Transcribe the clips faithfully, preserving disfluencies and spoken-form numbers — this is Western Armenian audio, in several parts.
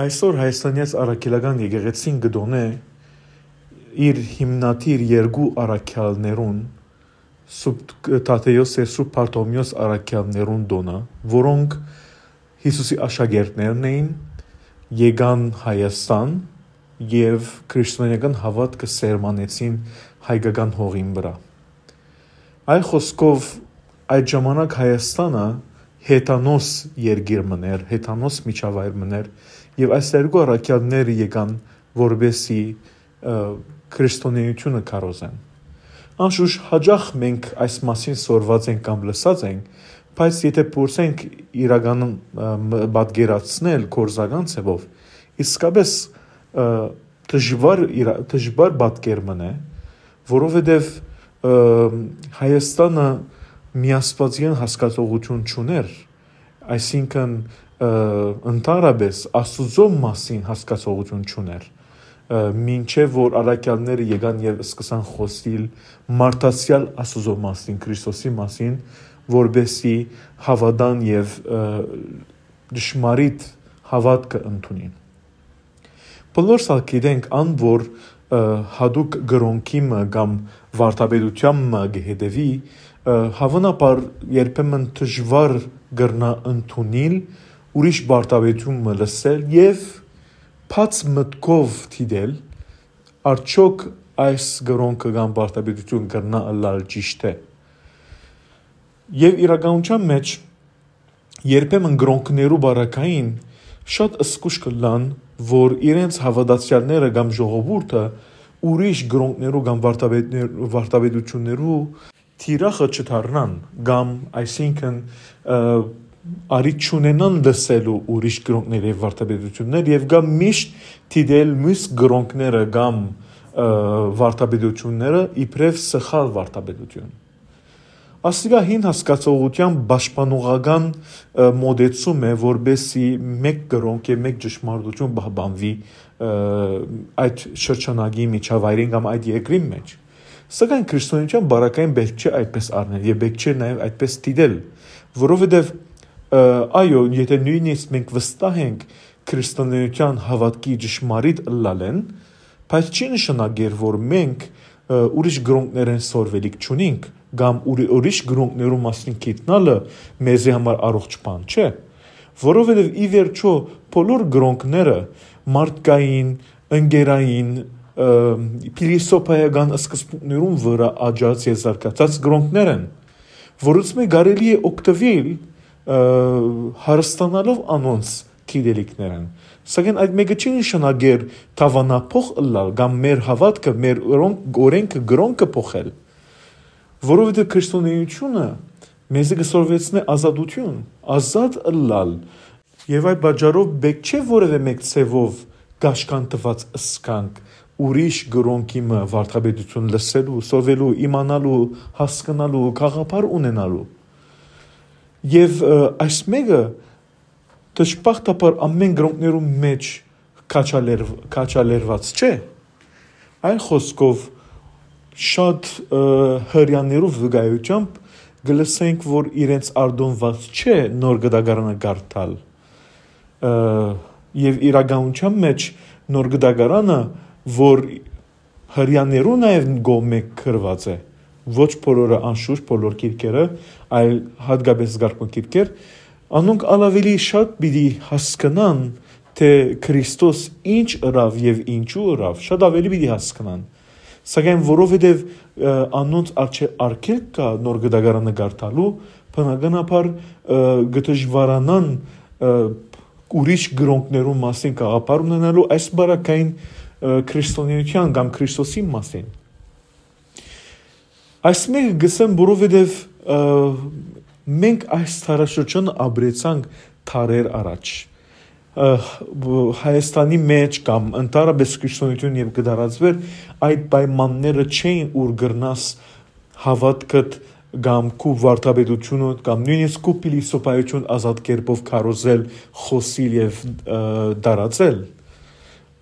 Այսօր Հայաստանեաց առաքելական եկեղեցին կը տօնէ իր հիմնադիր երկու առաքյալներուն, Սուրբ Թադէոս եւ Սուրբ Բարթոմէոս առաքյալներուն տօնը, որոնք Յիսուսի աշակերտներն էին, եկան Հայաստան եւ քրիստոնեական հաւատքը սերմանեցին հայկական հողին վրայ։ Այլ խօսքով, այդ ժամանակ Հայաստանը հեթանոս երկիր մըն էր, հեթանոս միջավայր մըն էր, եւ այս երկու առաքյալները եկան, որպեսզի, ը, քրիստոնեությունը քարոզեն։ Անշուշտ, հաճախ մենք այս մասին սորված ենք կամ լսած ենք, բայց եթե փորձենք իրականում, ը, մ-, պատկերացնել գործական ձևով, իսկապես, ը, դժուար իրա-, դժուար պատկեր մըն է, որովհետեւ, ը, Հայաստանը միասպածեան հասկացողութիւն չունէր, այսինքն, ը, ընդհանրապես Աստուծոյ մասին հասկացողութիւն չունէր, ը, մինչեւ որ առաքյալները եկան եւ սկսան խօսիլ մարդացեալ Աստուծոյ մասին, Քրիստոսի մասին, որպեսզի հաւատան եւ, ը, ճշմարիտ հաւատքը ընդունին։ Բոլորս ալ գիտենք ան, որ, ը, յատուկ կրօնքի մը կամ վարդապետութեան մը կը հետեւի, ը, հաւանաբար երբեմն դժուար կրնայ ընդունիլ, ուրիշ վարդապետութիւն մը լսել եւ բաց մտքով դիտել, արդյոք այս կրօնքը կամ վարդապետութիւն կրնայ ըլլալ ճիշդ է։ Եւ իրականութեան մէջ երբեմն կրօնքներու պարագային շատ զգոյշ կ'ըլլան, որ իրենց հաւատացեալները կամ ժողովուրդը ուրիշ կրօնքներու կամ վարդապետներ-, վարդապետութիւններու թիրախը չդառնան, կամ այսինքն, ը, առիթ չունենան լսելու ուրիշ կրօնքներ եւ վարդապետութիւններ, եւ կամ միշտ դիտել միւս կրօնքները կամ, ը, վարդապետութիւնները իբրեւ սխալ վարդապետութիւն։ Ասիկա հին հասկացողութեան պաշտպանողական, ը, մոտեցում է, որպեսզի մէկ կրօնք եւ մէկ ճշմարտութիւն պահպանուի, ը, այդ շրջանակի միջավայրին կամ այդ երկրին մէջ։ Սակայն քրիստոնեության պարագային պէտք չէ այդպես առնել եւ պէտք չէ նաեւ այդպես դիտել, որովհետեւ, ը, այո, եթե նոյնիսկ մենք վստահ ենք քրիստոնեության հաւատքի ճշմարիտ ըլլալէն, բայց չի նշանակեր, որ մենք, ը, ուրիշ կրօնքներէն սորվելիք չունինք, կամ ուրի-, ուրիշ կրօնքներու մասին գիտնալը մեզի համար առողջ բան չէ, որովհետեւ ի վերջոյ բոլոր կրօնքները մարդկային, ընկերային, ը, փիլիսոփայական սկզբունքներուն վրայ աճած եւ զարգացած կրօնքներ են, որոնցմէ կարելի է օգտուիլ, ը, հարստանալով անոնց գիտելիքներէն։ Սակայն այդ մէկը չի նշանակեր դաւանափոխ ըլլալ կամ մեր հաւատքը, մեր օրոնք-, օրենքը, կրօնքը փոխել, որովհետեւ քրիստոնեությունը մեզի կը սորվեցնէ ազատութիւն, ազատ ըլլալ։ Եւ այդ պատճառով պէտք չէ որեւէ մէկ ձեւով կաշկանդուած ըսկանք ուրիշ կրօնքի մը վարդապետութիւն լսելու, սորվելու, իմանալու, հասկնալու, գաղափար ունենալու։ Եւ, ը, այս մէկը դժբախտաբար ամէն կրօնքներու մէջ քաջալեր-, քաջալերված չէ։ Այլ խօսքով, շատ, ը, հրեաներու վկայութեամբ կը լսենք, որ իրենց արտոնված չէ Նոր Կտակարանը կարդալ։ Ը, եւ իրականության մէջ Նոր Կտակարանը, որ հրեաներու նաեւ կողմէ գրուած է, ոչ բոլորը, անշուշտ, բոլոր գիրքերը, այլ յատկապես զգարկուն գիրքեր, անոնք ալ աւելի շատ պիտի հասկնան, թէ Քրիստոս ինչ ըրաւ եւ ինչու ըրաւ, շատ աւելի պիտի հասկնան։ Սակայն որովհետեւ, ը, անոնց առջեւ արգելք կայ Նոր Կտակարանը կարդալու, բնականաբար, ը, կը դժուարանան, ը, ուրիշ կրօնքներու մասին գաղափար ունենալու, այս պարագային, ը, քրիստոնեության կամ Քրիստոսի մասին։ Այս մէկը կ'ըսեմ, որովհետեւ, ը, մենք այս դարաշրջանը ապրեցանք դարեր առաջ։ Ը, բ-, Հայաստանի մէջ կամ ընդհանրապես քրիստոնեություն երբ կը տարածուէր, այդ պայմանները չէին, ուր կրնաս հաւատքդ կամ քու վարդապետությունդ կամ նոյնիսկ քու փիլիսոփայություն ազատ կերպով քարոզել, խօսիլ եւ, ը, տարածել։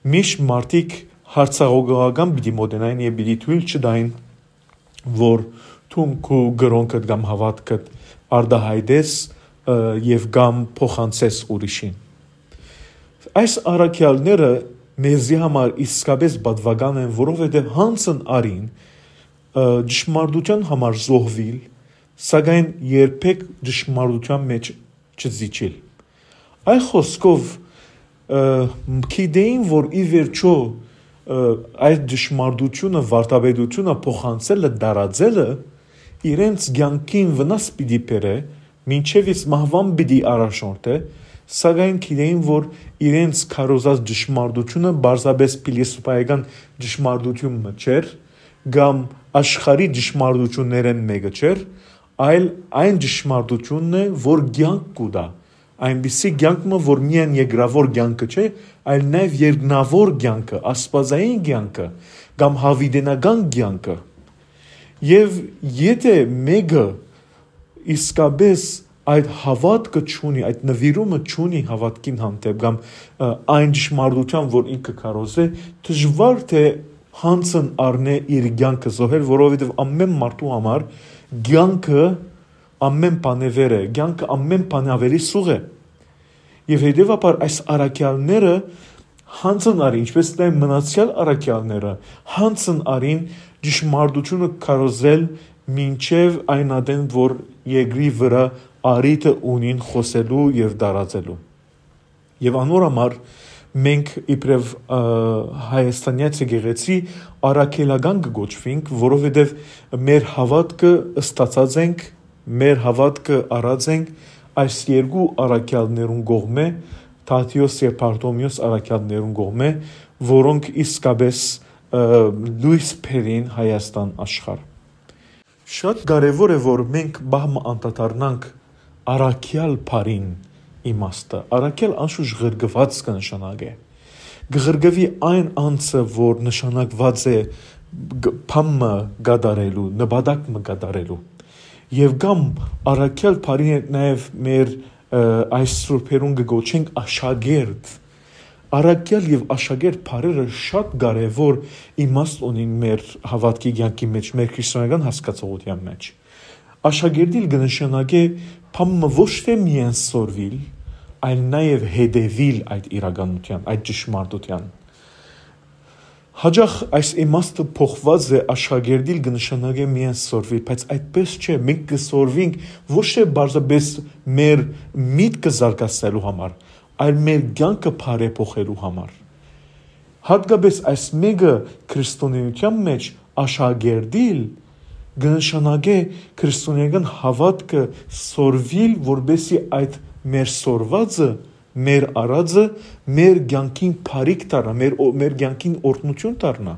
Միշտ մարդիկ յարցակողական պիտի մոտենային եւ պիտի թոյլ չտային, որ դուն քու կրօնքդ կամ հաւատքդ արտայայտես, ը, եւ կամ փոխանցես ուրիշին։ Այս առաքեալները մեզի համար իսկապէս պատուական են, որովհետեւ յանցն առին, ը, ճշմարտութեան համար զոհուիլ, սակայն երբեք ճշմարտութեան մէջ չզիջիլ։ Այլ խօսքով, ը, գիտէին, որ ի վերջոյ, ը, այդ ճշմարտութիւնը, վարդապետութիւնը փոխանցելը, տարածելը իրենց կեանքին վնաս պիտի բերէ, մինչեւ իսկ մահուան պիտի առաջնորդէ, սակայն գիտէին, որ իրենց քարոզած ճշմարտութիւնը պարզապէս փիլիսոփայական ճշմարտութիւն մը չէր, կամ աշխարհի ճշմարտութիւններէն մէկը չէր, այլ այն ճշմարտութիւնն է, որ կեանք կու տայ, այնպիսի կեանք մը, որ միայն երկրաւոր կեանքը չէ, այլ նաեւ երկնաւոր կեանքը, աստուածային կեանքը կամ յաւիտենական կեանքը։ Եւ եթէ մէկը իսկապէս այդ հաւատքը չունի, այդ նուիրումը չունի հաւատքին հանդէպ կամ, ը, այն ճշմարտութեան, որ ինքը քարոզէ, դժուար թէ յանցն առնէ իր կեանքը զոհել, որովհետեւ ամէն մարդու համար կեանքը ամէն բանէ վեր է, կեանքը ամէն բանէ աւելի սուղ է։ Եւ հետեւաբար այս առաքեալները յանցն առին, ինչպէս նաեւ մնացեալ առաքեալները յանցն առին ճշմարտութիւնը քարոզել մինչեւ այն ատեն, որ երկրի վրայ առիթը ունին խօսելու եւ տարածելու։ Եւ անոր համար մենք իբրեւ, ը, հայաստանեայց եկեղեցի առաքելական կը կոչուինք, որովհետեւ մեր հաւատքը ստացած ենք, մեր հաւատքը առած ենք այս երկու առաքեալներուն կողմէ, Թադէոս եւ Բարթոմէոս առաքեալներուն կողմէ, որոնք իսկապէս, ը, լոյս բերին Հայաստան աշխարհ։ Շատ կարեւոր է, որ մենք պահ մը անդադառնանք առաքեալ բառին իմաստը։ Առաքեալ անշուշտ ղրկուած կը նշանակէ։ Կը ղրկուի այն անձը, որ նշանակուած է գ-, բան մը կատարելու, նպատակ մը կատարելու։ Եւ կամ առաքեալ բառին հետ նաեւ մեր, ը, այս սուրբերուն կը կոչենք աշակերտ։ Առաքեալ եւ աշակերտ բառերը շատ կարեւոր իմաստ ունին մեր հաւատքի կեանքի մէջ, մեր քրիստոնեական հասկացողութեան մէջ։ Աշակերտիլ կը նշանակէ բան մը ոչ թէ միայն սորվիլ, այլ նաեւ հետեւիլ այդ իրականութեան, այդ ճշմարտութեան։ Յաճախ այս իմաստը փոխուած է, աշակերտիլ կը նշանակէ միայն սորվիլ, բայց այդպես չէ, մենք կը սորվինք ոչ թէ պարզապէս մեր միտքը զարգացնելու համար, այլ մեր կեանքը բարեփոխելու համար։ Յատկապէս այս մէկը քրիստոնէութեան մէջ աշակերտիլ կը նշանակէ քրիստոնեական հաւատքը սորվիլ, որպէսզի այդ մեր սորվածը, մեր առածը, մեր կեանքին բարիք դառնայ, մեր օ-, մեր կեանքին օրհնութիւն դառնայ։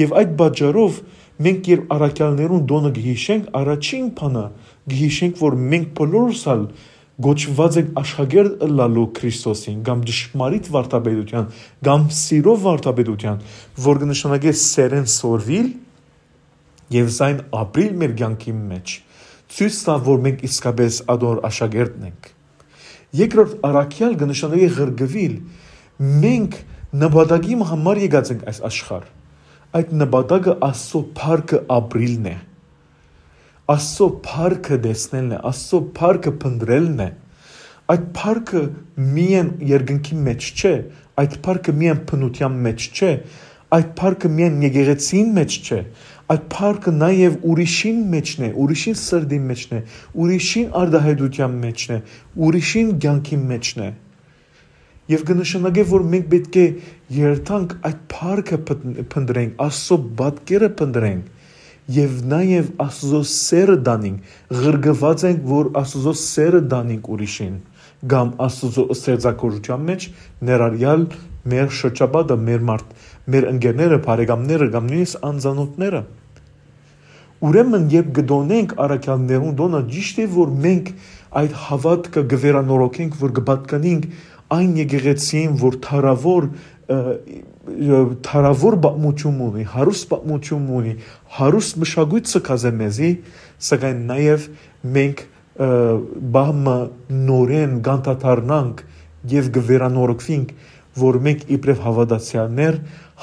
Եւ այդ պատճառով մենք երբ առաքեալներուն տօնը կը յիշենք, առաջին բանը կը յիշենք, որ մենք բոլորս ալ կոչուած ենք աշակերտ ըլլալու Քրիստոսին, կամ ճշմարիտ վարդապետութեան, կամ սիրո վարդապետութեան, որ կը նշանակէ սերեն սորվիլ եւ զայն ապրիլ մեր կեանքի մէջ, ցոյց տայ, որ մենք իսկապէս ադոր աշակերտն ենք։ Երկրորդ, առաքեալ կը նշանակէ ղրկուիլ։ Մենք նպատակի համար եկած ենք այս աշխարհ։ Այդ նպատակը Աստծո փառքը ապրիլն է։ Աստծո փառքը տեսնելն է, Աստծո փառքը փնտռելն է։ Այդ փառքը միայն երկնքի մէջ չէ, այդ փառքը միայն բնութեան մէջ չէ, այդ փառքը միայն եկեղեցին մէջ չէ, այդ փառքը նաեւ ուրիշին մէջն է, ուրիշին սրտին մէջն է, ուրիշին արտահայտութեան մէջն է, ուրիշին կեանքին մէջն է։ Եւ կը նշանակէ, որ մենք պէտք է երթանք այդ փառքը փն-, փնտռենք, Աստծո պատկերը փնտռենք եւ նաեւ Աստծո սերը տանենք, ղրկուած ենք, որ Աստծո սերը տանենք ուրիշին, կամ Աստծո ստեղծագործութեան մէջ ներառյալ մեր շրջապատը, մեր մարդ-, մեր ընկերները, բարեկամները կամ նոյնիսկ անծանօթները։ Ուրեմն, երբ կը տօնենք առաքեալներուն տօնը, ճիշդ է, որ մենք այդ հաւատքը կը վերանորոգենք, որ կը պատկանենք այն եկեղեցիին, որ թարաւոր, ը, ը, թարաւոր պատմութիւն ունի, հարուստ պատմութիւն ունի, հարուստ մշակոյթ ցկած է մեզի, սակայն նաեւ մենք, ը, պահ մը նորէն կանդադառնանք եւ կը վերանորոգուինք, որ մենք իբրեւ հաւատացեալներ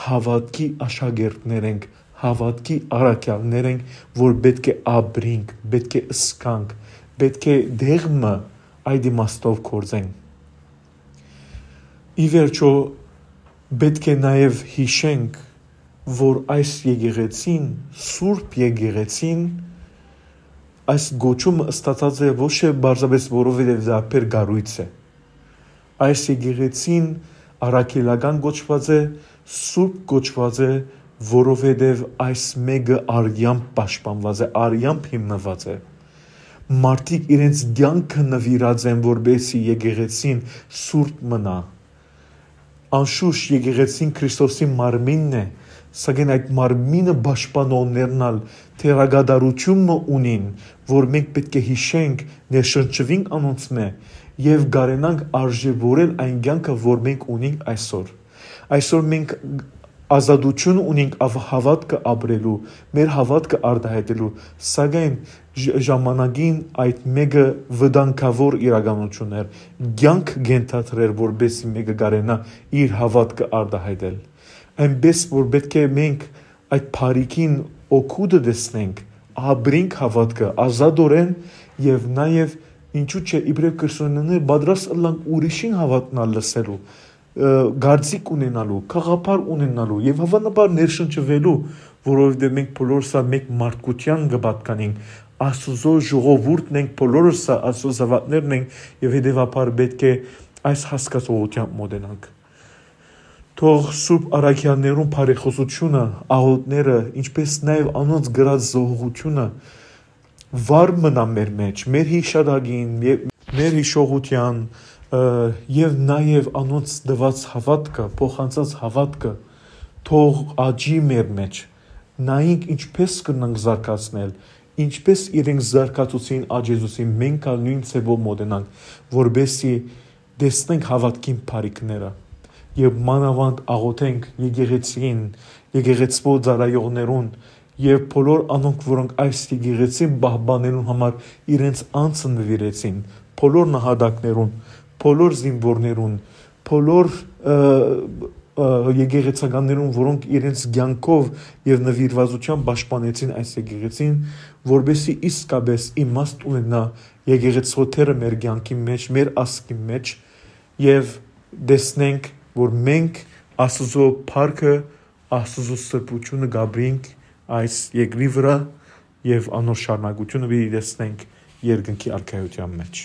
հաւատքի աշակերտներ ենք, հաւատքի առաքեալներ ենք, որ պէտք է ապրինք, պէտք է ըսկանք, պէտք է դեղ մը այդ իմաստով գործենք։ Ի վերջոյ, պէտք է նաեւ յիշենք, որ այս եկեղեցին, Սուրբ Եկեղեցին, այս կոչումը ստացած է ոչ թե պարզապէս որովհետեւ դարբեր կառոյց է։ Այս եկեղեցին առաքելական կոչուած է, սուրբ կոչուած է, որովհետեւ այս մէկը արեամբ պաշտպանուած է, արեամբ հիմնուած է։ Մարդիկ իրենց կեանքը նուիրած են, որպեսզի եկեղեցին սուրբ մնայ։ Անշուշտ, եկեղեցին Քրիստոսի մարմինն է, սակայն այդ մարմինը պաշտպանողներն ալ թերակատարութիւն մը ունին, որ մենք պէտք է յիշենք, ներշնչուինք անոնցմէ եւ կարենանք արժեւորել այն կեանքը, որ մենք ունինք այսօր։ Այսօր մենք ազատութիւն ունինք ավ-, հաւատքը ապրելու, մեր հաւատքը արտահայտելու, սակայն ժ-, ժամանակին այդ մէկը վտանգաւոր իրականություն էր, կեանք կ'ենթադրէր, որպեսզի մէկը կարենայ իր հաւատքը արտահայտել։ Այնպէս որ պէտք է մենք այդ բարիքին օգուտը տեսնենք, ապրենք հաւատքը ազատօրէն եւ նաեւ, ինչու՞ չէ, իբրեւ քրիստոնյաներ պատրաստ ըլլանք ուրիշին հաւատքն ալ լսելու, ը, կարծիք ունենալու, գաղափար ունենալու եւ հաւանաբար ներշնչուելու, որովհետեւ մենք բոլորս ալ մէկ մարդկութեան կը պատկանենք, Աստուծոյ ժողովուրդն ենք, բոլորս ալ Աստուծոյ զաւակներն ենք եւ հետեւաբար պէտք է այս հասկացողութեամբ մօտենանք։ Թող Սուրբ Առաքեալներուն բարեխօսութիւնը, աղօթքները, ինչպէս նաեւ անոնց կրած զոհողութիւնը վառ մնայ մեր մէջ, մեր յիշատակին, ե-, մեր յիշողութեան, ը, եւ նաեւ անոնց տուած հաւատքը, փոխանցած հաւատքը թող աճի մեր մէջ։ Նայենք ինչպէս կրնանք զարգացնել, ինչպէս իրենք զարգացուցին, աճեցուցին, մենք ալ նոյն ձեւով մօտենանք, որպեսզի տեսնենք հաւատքին բարիքները եւ մանաւանդ աղօթենք եկեղեցին, եկեղեցւոյ ծառայողներուն եւ բոլոր անոնք, որոնք այս եկեղեցին պահպանելուն համար իրենց անձը նուիրեցին, բոլոր նահատակներուն, բոլոր զինուորներուն, բոլոր, ը, ը, եկեղեցականներուն, որոնք իրենց կեանքով եւ նուիրվածությամբ պաշտպանեցին այս եկեղեցին, որպեսզի իսկապէս իմաստ ունենայ եկեղեցւոյ դերը մեր կեանքին մէջ, մեր ազգին մէջ, եւ տեսնենք, որ մենք Աստուծոյ փառքը, Աստուծոյ սրբութիւնը կ'ապրենք այս երկրի վրայ եւ անոր շարունակութիւնը պիտի տեսնենք երկնքի արքայութեան մէջ։